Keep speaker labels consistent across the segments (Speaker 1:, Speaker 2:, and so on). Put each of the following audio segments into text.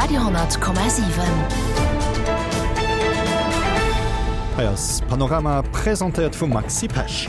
Speaker 1: Radio,7.
Speaker 2: Hei ass Panorama, presentéiert vum Maxi Pesch.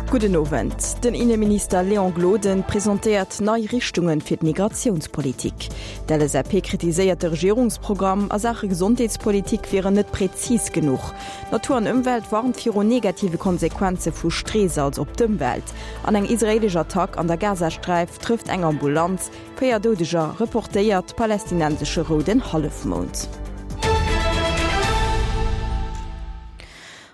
Speaker 3: Gudden Owend. Den Inneminister Léon Gloden presentéiert nei Richtunge fir d'Migratiounspolitik. D'LSAP kritiséiert de Regierungsprogramm a Saache Gesondheetspolitik wier en net präzis genuch. Natur an Ëmwelt warnt viru negative Konsequenze vu Streesalz op d'Ëmwelt. An eng israeelesch Attack an der Gazasträif trëfft eng Ambulanz, 4 Doudeger, reportéiert palästinensesche Rouden Hallefmound.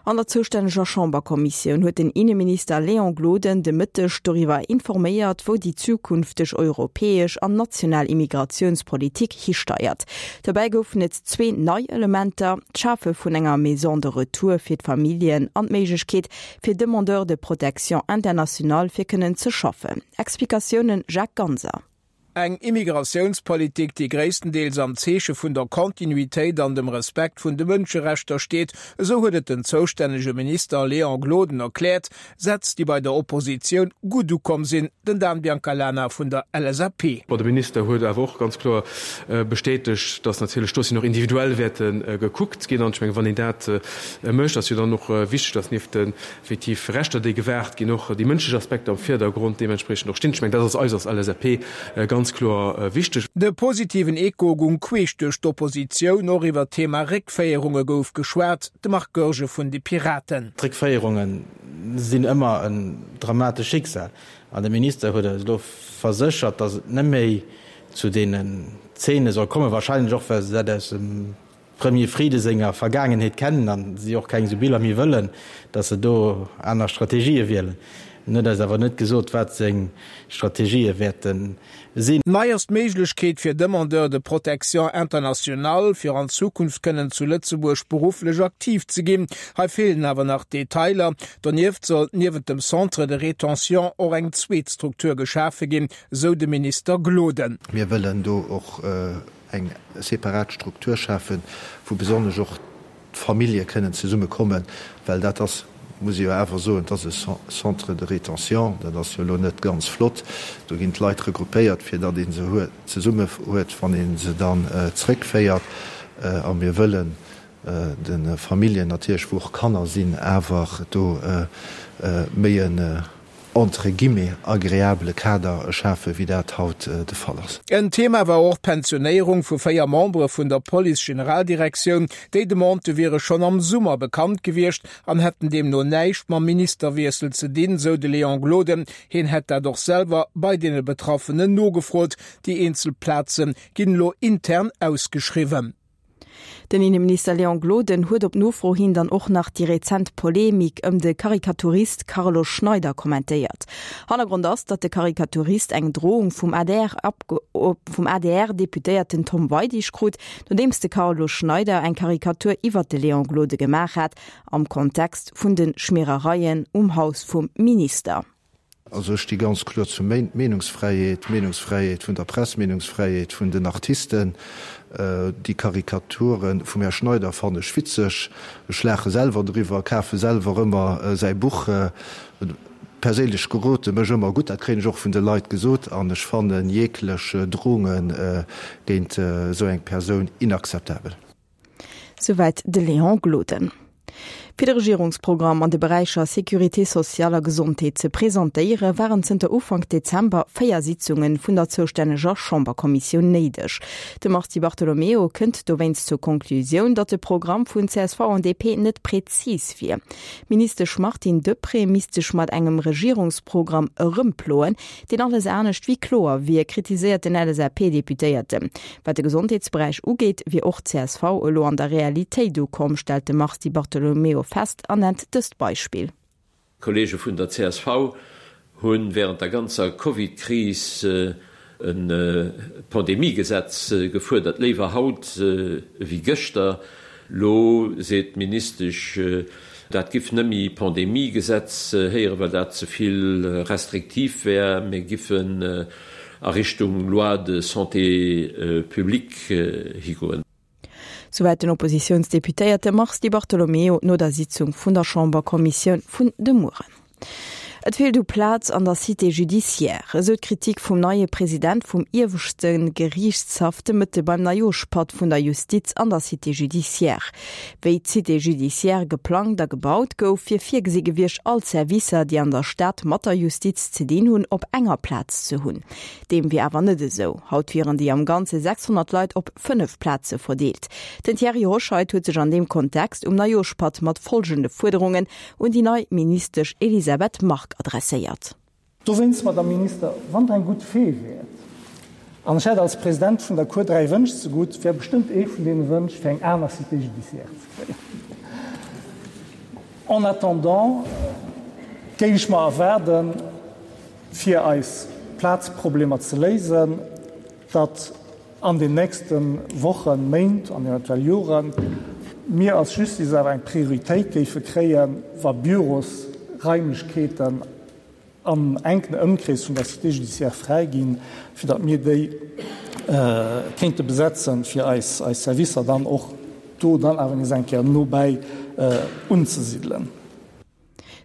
Speaker 3: An der zoustänneger Chamberkommissioun huet den Inneminister Léon Gloden de Mëtteg doriwwer informéiert, wou déi zukünfteg europäesch an national Immigratiounspolitik histeiert. Dobäi goufen et zwee nei Elementer, d'Schafe vun enger Maison de retour fir d'Familljen an d'Méiglechkeet fir Demandeurs de protection internationale fir kënnen ze schaffen. Explikatiounen Jacques Ganser.
Speaker 4: Eng Immigratiounspolitik, déi gréisstendeels am Zeeche vun der Kontinuitéit an dem Respekt vun de Mënscherechter steet, esou huet et den zoustännege Minister Léon Gloden erkläert. Sätz, déi bei der Oppositioun gutt ukomm sinn, den Dan Biancalana vun der LSAP.
Speaker 5: Bon, de Minister huet awer och ganz kloer bestätegt, datt natierlech d'Dossieren och individuell wäerte gekuckt ginn. An ech mengen, wann een dat mécht, ass jo dann och wichteg, datt nieft den effektiv Rechter, déi gewaart ginn, och déi mënschlech Aspekter am Virdergrond deementspriechend och stinn. Ech mengen, dat ass eis als LSAP ganz kloer wichteg.
Speaker 4: De positiven Echo gung queesch duerch d'Oppositioun. Och iwwer d'Thema Réckféierunge gouf geschwat. De Marc Goergen vun de Piraten.
Speaker 6: D'Réckféierunge sinn ëmmer en dramatescht Schicksal. An de Minister huet eis elo verséchert, datt et net méi zu deenen Zeene soll kommen, wahrscheinlech och well se dat aus dem Premier Frieden senger Vergaangenheet kennen an si och keng esou Biller méi wëllen, datt se do aner Strategië wielen. En huet eis awer net gesot, wat seng Strategië wäerte sinn.
Speaker 4: Nei ass d'Méiglechkeet fir Demandeurs de protection internationale, fir an Zukunft kënnen zu Lëtzebuerg berufflech aktiv ze ginn. Hei feelen awer nach Detailer. Donieft soll niewent dem Centre de rétention och eng zweet Struktur geschafe ginn, esou de Minister Gloden.
Speaker 7: Mir wëllen do och eng separat Struktur schafen, wou besonnesch och d'Famillje kënnen zesumme kommen, well dat ass, muss ee jo awer soen, et ass e Centre de rétention, dat ass jo elo net ganz flott. Do ginn d'Leit regroupéiert, fir datt ee se zesumme huet, wann ee se dann zréckféiert. A mir wëllen de Familljen natierlech, wou och Kanner sinn, awer do méi en entre guillemets agreabele Kader schafen, wéi dat haut de Fall ass.
Speaker 4: En Thema war och d'Pensionéierung vu 4 Membere vun der Police-Generaldirektioun. Déi Demandë wiere schonn am Summer bekannt gewiescht an hätten deemno näischt mam Ministerwiessel ze dinn, sou de Léon Gloden. Hien hätt dat och selwer bei deene Betraffenen nogefrot. Déi eenzel Plaze ginn elo intern ausgeschriwwen.
Speaker 3: Den Inneminister Léon Gloden huet op Nofro hin dann och nach déi rezent Polemik ëm de Karikaturist Carlo Schneider kommentéiert. Hannergrond ass, datt de Karikaturist eng Drohung vum vum ADR-Deputéierten Tom Weidig krut, nodeems de Carlo Schneider eng Karikatur iwwert de Léon Gloden gemaach hat am Kontext vun de Schmierereien um Haus vum Minister.
Speaker 7: Also ech sti ganz kloer zur Meenungsfräiheet, Meenungsfräiheet vun der Press, Meenungsfräiheet vun den Artisten. Déi Karikature vum Här Schneider fannen ech witzeg. Ech laache selwer driwwer, kafe selwer ëmmer säi Buch. Perséinlech gerot e mech ëmmer gutt, dat kréien ech och vun de Leit gesot. An ech fannen jeglech Drohunge géint esou eng Persoun inakzeptabel.
Speaker 3: Souwäit de Léon Gloden. Fir de Regierungsprogramm an de Beräicher Sécurité sociale a Gesondheet ze presentéiere waren zënter Ufank Dezember 4 Sitzunge vun der zoustänneger Chamberkommissioun néideg. De Mars Di Bartolomeo kënnt dowéinst zur Conclusioun, datt de Programm vun csv an DP net prezis wier. D'Ministesch Martine Deprez misst sech mat engem Regierungsprogramm erëmploen, deen alles anescht wéi kloer wier, kritiséiert den LSAP-Deputéierten. Wat de Gesondheetsberäich ugeet, wier och csv elo an der Realitéit ukomm, stellt de Mars Di Bartolomeo fest an nennt dëst Beispill.
Speaker 8: D'Kolleege vun der csv hu wärend der ganzer Covid-Kris e Pandemiegesetz gefuerdert, léiwer haut ewéi gëschter. Lo seet d'Ministesch, dat giff nëmmi Pandemiegesetz héieren, well dat ze vill restriktiv wär, mir giffen a Richtung Loi de santé publique higoen.
Speaker 3: Souwäit den Oppositiounsdeputéierte Mars Di Bartolomeo no der Sitzung vun der Chamberkommissioun vun de Mueren. Et feelt u Plaz an der Cité judiciaire, esou d'Kritik vum neie President vum ieweschte Geriichtshaff de Mëtte beim Neijooschpatt vun der Justiz an der Cité judiciaire. Wéi d'Cité judiciaire geplangt a gebaut gouf, wier virgesi gewiescht, all d'Servicer, déi an der Stad mat der Justiz ze dinn hunn, op enger Plaz ze hunn. Deem wier awer net esou. Haut wieren déi am Ganze 600 Leit op 5 Plaze verdeelt. Den Thierry Hoscheit huet sech an deem Kontext um Neijooschpatt mat folgende Fuerderungen un déi nei Ministesch Elisabeth Margue adresséiert.
Speaker 1: Dowéinst, Madame Minister, wann Der eng gutt Fee wäert, an ech hätt als President vun der Cour 3 Wënsch zegutt, wär bestëmmt ee vun deene Wënsch, fir eng aner Cité judiciaire ze kréien. En attendant géif ech mer erwaarden, fir eis Plazproblemer ze léisen, datt an den nächste Wochen, Méint an eventuell Joren mir als Justice awer eng Prioritéit géife kréien, wa Bürosraimlechkeeten am enken Ëmkrees vun der Cité judiciaire fräi ginn, fir datt mir déi kéinte besetzen, fir eis Servicer dann och do dann awer nees eng Kéier nobäi unzesidelen.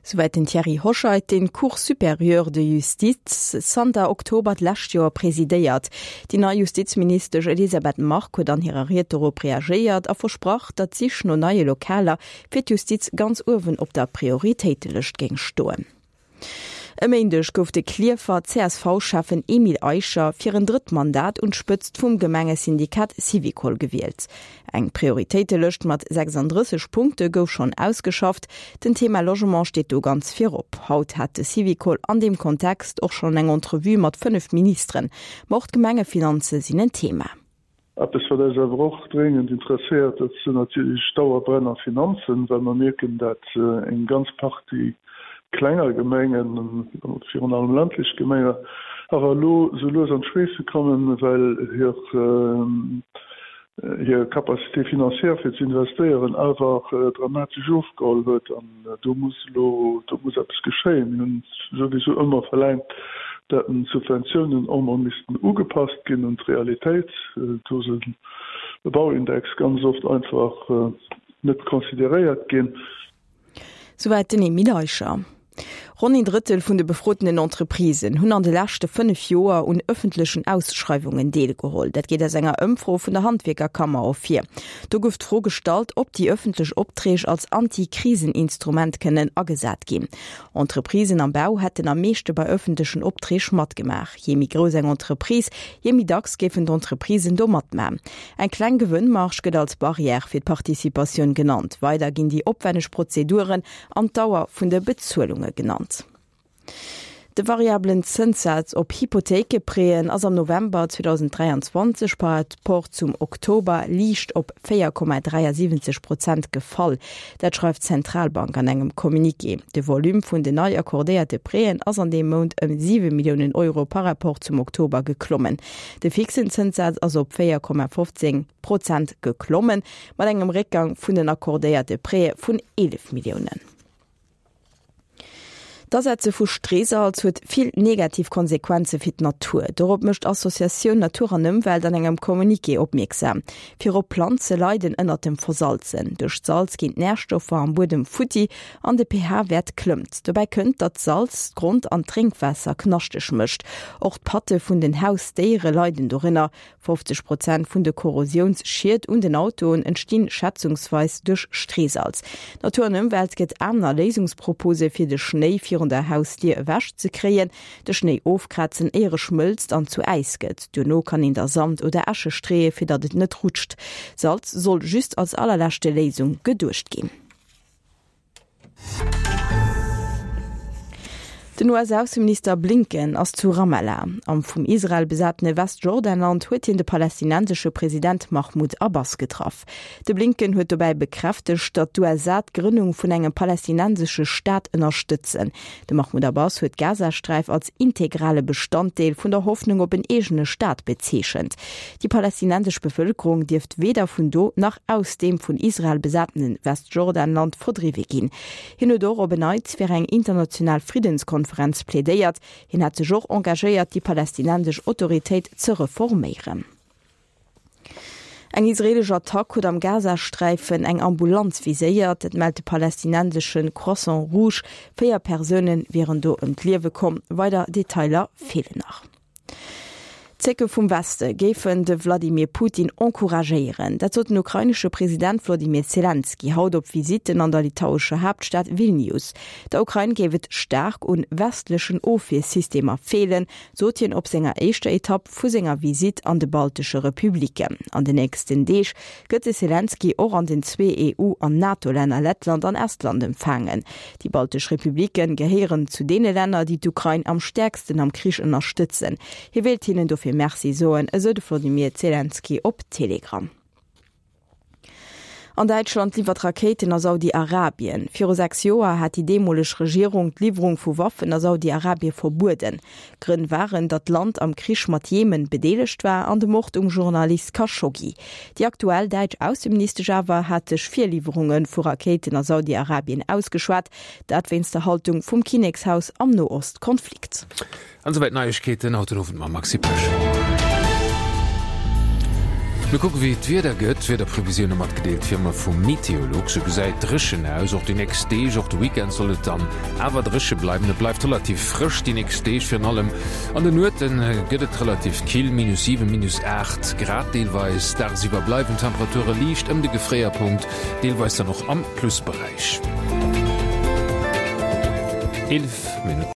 Speaker 3: Souwäit den Thierry Hoscheit, deen d'Cour supérieure de justice zanter Oktober d'lescht Joer presidéiert. Déi nei Justizministesch Elisabeth Margue huet an hirer Ried dorop reagéiert a versprach, datt d'Sich no neie Lokaler fir d'Justiz ganz uewen op der Prioritéitelëscht géing stoen. E Méindeg gouf de Klierfer CSV-Schäffen Emile Eicher fir en drëtt Mandat un d'Spëtzt vum Gemengesyndikat Syvicol gewielt. Eng Prioritéitelëscht mat 36 Punkte gouf schonn ausgeschafft. Den Thema Logement steet do ganz virop. Haut hat de Syvicol an deem Kontext och schonn eng Entrevue mat 5 Ministeren. Ma och d'Gemengefinanze sinn en Thema.
Speaker 9: Eppes, wat eis awer och dréngend interesséiert, dat sinn natierlech d'Dauerbrenner Finanzen, well mer mierken, dat eng ganz Partie klenger Gemengen, virun allem ländlech Gemenge, awer elo sou lues an d'Schweesse kommen, well hir hir Capacité financière fir ze investéieren awer dramatesch ofgeholl huet. An do muss elo, do muss eppes geschéien. Mir hunn souwisou ëmmer verlaangt, dat d'Subventiounen och emol missten ugepasst ginn un d'Realitéit. Do ass e Bauindex ganz oft einfach net consideréiert ginn.
Speaker 3: Souwäit den Emile Eicher. Ronn een Drëttel vun de befrotenen Entreprisen hunn an de leschte 5 Joer un ëffentlechen Ausschreiwungen deelgeholl. Dat geet aus enger Ëmfro vun der Handwierkerkammer ervir. Do gouf d'Fro gestallt, ob déi ëffentlech Opträg als Anti-Krisen-Instrument kënnen agesat ginn. Entreprisen am Bau hätten am meeschte bei ëffentlechen Opträg matgemaach. Jee méi grouss eng Entreprise, jee méi dacks géifen d'Entreprisen do matman. Eng kleng Gewënnmarge gëtt als Barrière fir d'Participatioun genannt. Weider ginn déi opwänneg Prozeduren an d'Dauer vun de Bezuelunge genannt. De variabelen Zënssaz op Hypothéikeprêten ass am November 2023 par rapport zum Oktober liicht op 4,73 Prozent gefall. Dat schreift d'Zentralbank an engem Communiqué. De Volume vun den nei accordéierte Prêten ass an deem Mount ëm 7 Milliounen Euro par rapport zum Oktober geklommen. De fixen Zënssaz ass op 4,15 Prozent geklommen, mat engem Réckgang vun den accordéierte Prêtë vun 11 Milliounen. D'Asetze vu Streesalz huet vill negativ Konsequenze fir d'Natur. Dorop mécht d'Associatioun Natur an Ëmwelt an engem Communiqué opmierksam. Virop Planze leiden ënnert dem Versalzen. Duerch d'Salz ginn d'Närstoffer am Buedem futti an de pH-Wäert klëmmt. Dobäi kënnt, datt d'Salz d'Grond an d'Drénkwaasser knaschteg mécht. Och d'Patte vun den Hausdéiere leiden dorënner. 50 Prozent vun de Korrosiounsschied un den Autoen entstinn schätzungsweis duerch Streesalz. Natur an Ëmwelt gëtt aner Léisungspropose fir de Schnéi virun der Hausdier ewech ze kréien, De Schnéi ofkrazen éier e schmëlzt an zu Äis gëtt. Duerno kann een da Sand oder Äsche streeë fir datt et net rutscht. Salz soll just als allerleschte Léisung geduecht ginn. Den US-Ausseminister Blinken ass zu Ramallah. Am vum Israel besatene Westjordanland huet hien de palästinensesche President Mahmoud Abbas getraff. De Blinken huet dobäi bekräftegt, datt d'USA d'Grënnung vun engem palästinensesche Staat ënnerstëtzen. De Mahmoud Abbas huet d'Gazasträif als integrale Bestanddeel vun der Hoffnung op en eegene Staat bezeechent. Déi palästinensesch Bevëlkerung dierft weder vun do nach aus deem vun Israel besatene Westjordanland verdriwwe ginn. Hien huet och op en Neits fir eng international Friddenskonferenz plädéiert. Hien hat sech och engagéiert, déi palästinensesch Autoritéit ze reforméieren. Eng israeelesch Attack huet am Gazasträifen eng Ambulanz viséiert. Dat mellt de palästinensesche Croissant Rouge. 4 Persoune wieren do ëm d'Liewe komm. Weider Detailer feelen nach. D'Zécke vum Weste géifen de Wladimir Putin encouragéieren. Dat sot den ukrainesche President Wlodimir Selenskyj haut op Visitten an der litauescher Haaptstad Vilnius. Der Ukrain géif et staark un westlechen Ofwiersystemer feelen, sot hien op senger éischter Etapp vu senger Visitt an de baltesche Republiken. An den nächsten Deeg gëtt de Selenskyj och an den zwee EU an NATO-Länner Lettland an Estland empfaangen. Déi baltesch Republike gehéieren zu deene Länner, déi d'Ukrain am stäerksten am Krich ënnerstëtzen. Hie wéilt hinnen dofir Merci soen, esou de Wlodimir Selenskyj op Telegram. An Däitschland liwwert Rakéiten a Saudi-Arabien. Viru 6 Joer hat déi deemoleg Regierung d'Liwwerung vu Waffen a Saudi-Arabie verbueden. Grënn waren, datt d'Land am Krich mat Jemen bedeelegt war an de Mord um Journalist Khashoggi. Déi aktuell däitsch Ausseministesch awer hat sech fir Liwwerunge vu Rakéiten a Saudi-Arabien ausgeschwat, dat wéinst der Haltung vum Kinnekshaus am Noost-Konflikt.
Speaker 10: An esouwäit d'Neiegkeeten haut den Owend mam Maxi Pesch. Mir kucke wéi d'Wieder gëtt. D'Wiederprevisioune matgedeelt wéi ëmmer vu Meteolux. Sou gesäit dréchen aus, och déi nächst Deeg. Och de Weekend soll et dann awer dréche bleiwen. Et bleift relativ frësch déi nächst Deeg. Virun allem an de Nuete gëtt et relativ kill, minus 7, minus 8 Grad deelweis. Dagsiwwer bleiwen d'Temperature liicht ëm de Gefréierpunkt, deelweis dann och am Plusberäich. 11 Minutten.